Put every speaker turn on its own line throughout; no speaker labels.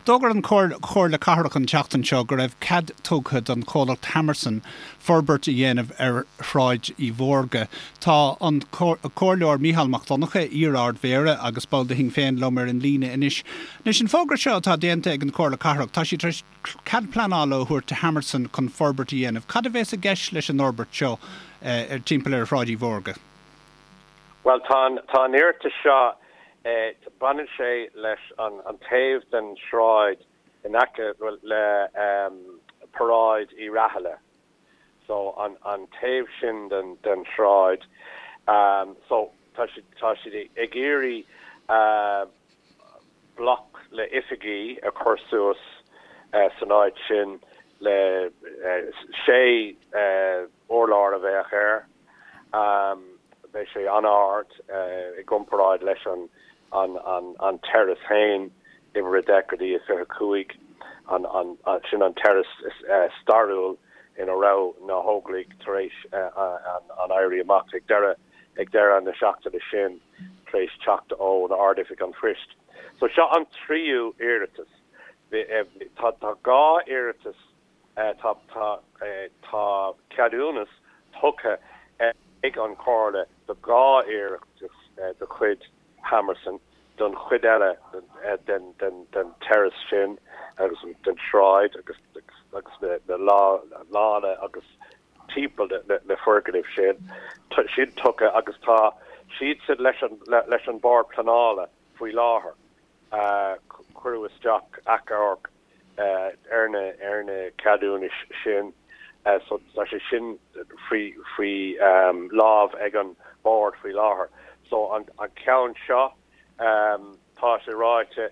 D'fhógair an Chomhairle Cathrach an tseachtain seo go raibh cead tugtha don chomhlacht Hammerson forbairt a dhéanamh ar Shráid Uí Mhórdha. Tá an Comhairleoir Mícheál Mac Donncha, iar-Ard-Mhéara agus ball de Shinn Féin liom ar an líne anois. Anois an fógra seo atá déanta ag an Chomhairle Cathrach, tá siad tar éis cead pleanála a thabhairt do Hammerson chun forbairt a dhéanamh. Cad a bheas i gceist leis an fhorbairt seo timpeall ar Shráid Uí Mhórdha?
Bhuel, tá an, tá an iarratas seo, baineann sé leis an, an taobh den sráid in aice le Paráid Uí Rathaille. So, an, an taobh sin den, den sráid. So, tá siad, tá siad ag iarraidh bloc le oifigí a chur suas san áit sin le sé urlár a bheadh air. Beidh sé an-ard i gcomparáid leis an an terrace féin, uimhir a 10 go dtí a 25, sin an terrace stairiúil ina raibh na hÓglaigh tar éis an Éirí Amach ag deireadh ag deireadh na seachtaine sin tar éis teacht ón Ard-Oifig an Phoist. So seo an tríú iarratas. Tá 2 iarratas Tá tá ceadúnas tugtha ag an Chomhairle do 2 iarratas de chuid Hammerson don chuid eile den den terrace sin agus den sráid agus agus na lána agus timpeall na foirgnimh sin. Tá siad tugtha agus tá siadsan leis an leis an Bord Pleanála faoi láthair. Cuireadh isteach achomharc ar na ar na ceadúnais sin so tá sé sin faoi faoi lámh ag an Bord faoi láthair. So an an ceann seo tá sé ráite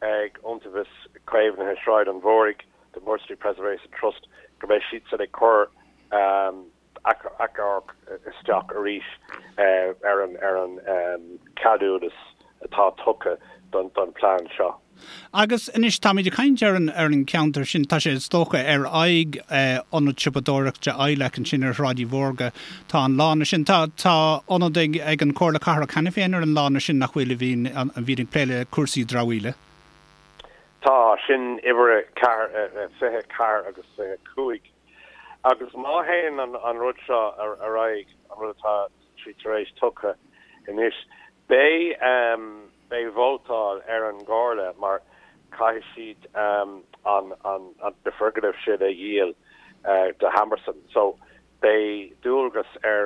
ag Iontaobhas Caomhnaithe Shráid an Mhúraigh, the Moore Street Preservation Trust, go mbeidh siadsan ag cur achomharc isteach arís ar an ar an ceadúnas atá tugtha don don plean seo.
Agus anois táimid ag caint ar an ar an cheantar sin, tá sé is dócha ar aghaidh ionad siopadóireachta ILAC ansin ar Shráid Uí Mhórdha, tá an lána sin, tá tá ionad ag ag an Chomhairle Cathrach cheana féin ar an lána sin nach bhfuil a bhíonn a bhíonn ag plé le cúrsaí dramhaíola.
Tá, sin uimhir a 4, 24 agus 25. Agus má théann an rud seo ar aghaidh, an rud atá siad tar éis tugtha anois, beidh beidh vótáil ar an gComhairle mar caithfidh siad an na foirgnimh sin a dhíol do Hammerson. So beidh dualgas ar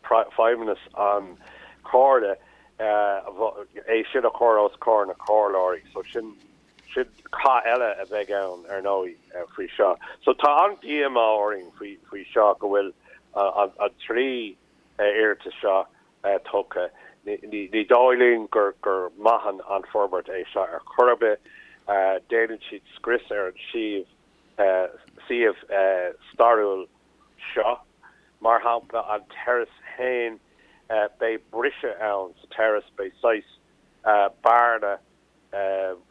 feidhmeannas an Chomhairle é sin a chur os comhair na comhairleoirí. So sin Sin cath eile a bheidh ann, ar ndóigh, faoi seo. So tá an-díomá orainn faoi seo go bhfuil an 3 iarratas seo tugtha. Ní dóigh linn gur maith an forbairt é seo ar chor ar bith. Déanann siad scrios ar an suíomh stairiúil seo. Mar shampla, an terrace féin, beidh briseadh ann sa terrace, beidh saghas bearna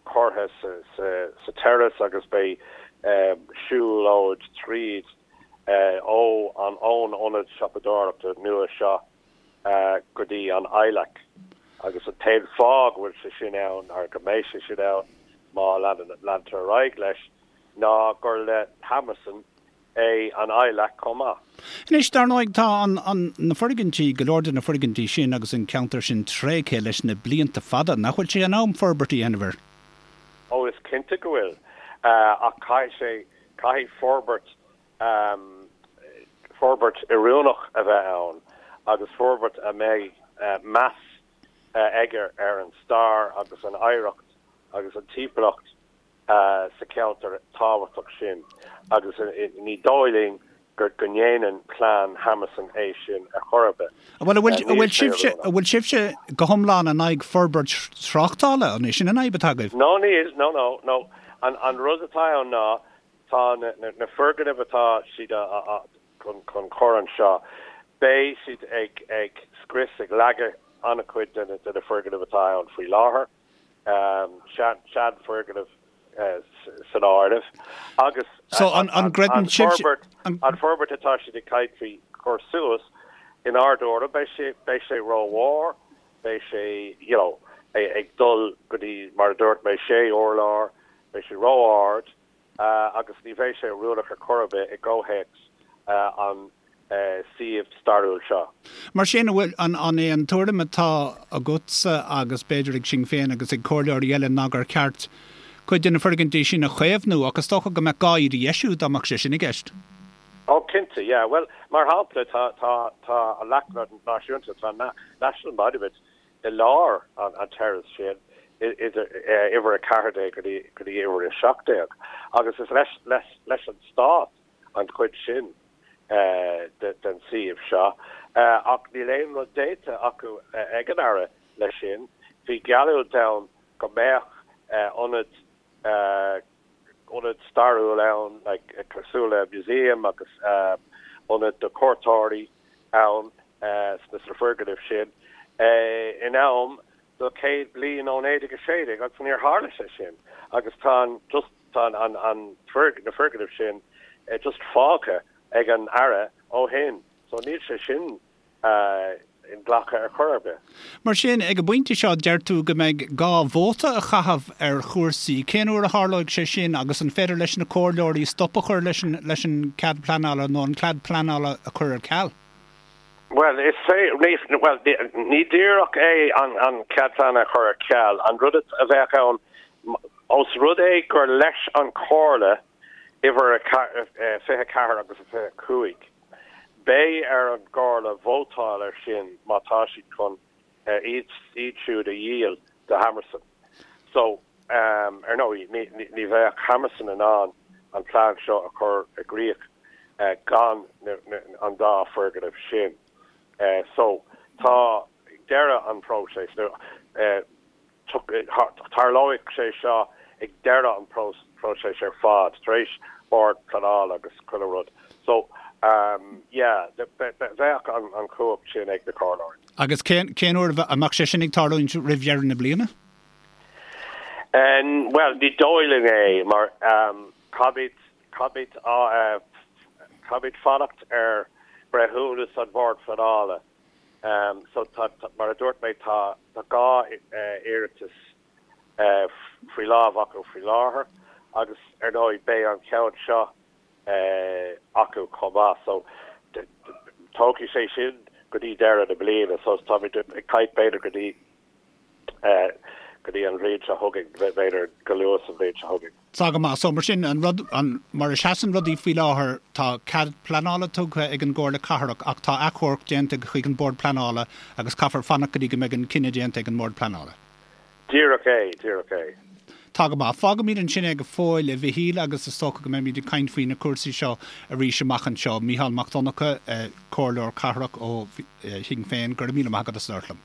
curtha sa terrace agus beidh siúlóid tríd ó an ón ionad siopadóireachta nua seo go dtí an ILAC agus an t-aon fáth go bhfuil sé sin ann, nó go mbeidh sé sin ann má leantar ar aghaidh leis, ná gur le Hammerson é an ILAC chomh maith.
Anois, dar ndóigh, tá an, an, na foirgintí, go leor de na foirgintí sin agus an ceantar sin tréigthe leis na blianta fada. Nach bhfuil sé in am forbairt a dhéanamh air?
Ó, is cinnte go bhfuil. Ach caithfidh sé, caithfidh forbairt, forbairt oiriúnach a bheith ann agus forbairt a mbeidh meas aige ar an stair agus an oidhreacht agus an timpeallacht sa cheantar tábhachtach sin agus ní dóigh linn go ndéanann plean Hammerson é sin ar chor ar bith.
Bhuel, an bhfuil sibhse, an bhfuil sibhse go hiomlán in aghaidh forbairt tráchtála? An é sin an fhadhb atá agaibh?
No, níl, no, no, no. An rud atá ann ná tá na foirgnimh atá siad chun cur anseo, beidh siad ag scrios, ag leagadh an-chuid de na foirgnimh atá ann faoi láthair. seanfhoirgnimh san áireamh agus an forbairt atá siad ag caint faoi chur suas, inár dtuairim, beidh sé beidh sé rómhór, beidh sé you know. ag dul go dtí, mar a dúirt mé, sé urlár, beidh sé ró-ard agus ní bheidh sé oiriúnach ar chor ar bith i gcomhthéacs an suíomh stairiúil seo.
Mar sin, an bhfuil, an é an tuairim atá agatsa agus b'fhéidir ag Sinn Féin agus ag comhairleoirí eile ná gur ceart cuid de na foirgintí sin a chaomhnú ach is dócha go mbeadh gá iad a dheisiú dá mbeadh sé sin i gceist?
Ó, cinnte, yeah. Bhuel, mar shampla, tá, tá, tá an Leacht Náisiúnta, tá an National Monument i lár an terrace sin, idir uimhir 14 go dtí, go dtí uimhir 17 agus is leis, leis, leis an Stát an chuid sin den suíomh seo. Ach níl aon rud déanta acu ag an Aire leis sin. Bhí geallúint ann go mbeadh ionad ionad stairiúil ann, like, cosúil le museum agus ionad do chuairteoirí ann sna foirgnimh sin in am do 100 bliain ó 1916 agus níor tharla sé sin agus tá an just tá an an na foirgnimh sin just fágtha ag an Aire ó shin so níl sé sin inghlactha ar chor ar bith.
Mar sin, ag an bpointe seo, deir tú go mbeidh gá vóta a chaitheamh ar chúrsaí. Cén uair a tharlóidh sé sin agus an féidir leis na comhairleoirí stop a chur leis an leis an cead pleanála nó an cead pleanála a chur ar ceal?
Bhuel, is fé, bhuel, ní díreach é an an cead pleanála a chur ar ceal. An rud a bheadh ann, ós rud é gur leis an Chomhairle uimhir 24 agus 25, Beidh ar an gComhairle vótáil air sin má tá siad chun iad siúd a dhíol do Hammerson. So, ar ndóigh, ní bheadh Hammerson in ann an plean seo a chur i gcrích gan an dá foirgneamh sin. So, tá deireadh an phróisis. Tarlóidh sé seo ag deireadh an phróisis ar fad, tar éis Bord Pleanála agus chuile rud. So, yeah, bheadh an chumhacht sin ag na comhairleoirí.
Agus cén uair a mbeadh sé sin ag tarlúint roimh dheireadh na bliana?
Bhuel, ní dóigh linn é, mar caithfimid, caithfimid, caithfimid fanacht ar breithiúnas an Bhoird Phleanála. So tá, mar a dúirt mé, tá 2 iarratas faoi lámh acu faoi láthair agus ar ndóigh beidh an ceann seo acu chomh maith. So tógfaidh sé sin go dtí deireadh na bliana. So táimid ag caint b'fhéidir go dtí go dtí an bhliain seo chugainn, b'fhéidir go luath sa bhliain seo chugainn.
Tá go maith. So mar sin, an rud, an, mar a seasann rudaí faoi láthair, tá cead pleanála tugtha ag an gComhairle Cathrach ach tá achomharc déanta chuig an Bord Pleanála agus caithfear fanacht go dtí go mbeidh an cinneadh déanta ag an mBord Pleanála.
Díreach é, díreach é.
Tá go maith. Fágfaimid ansin é go fóill, a Mhichíl, agus is dócha go mbeimid ag caint faoi na cúrsaí seo arís amach anseo. Mícheál Mac Donncha, Comhairleoir Cathrach ó Shinn Féin, go raibh míle maith agat as labhairt liom.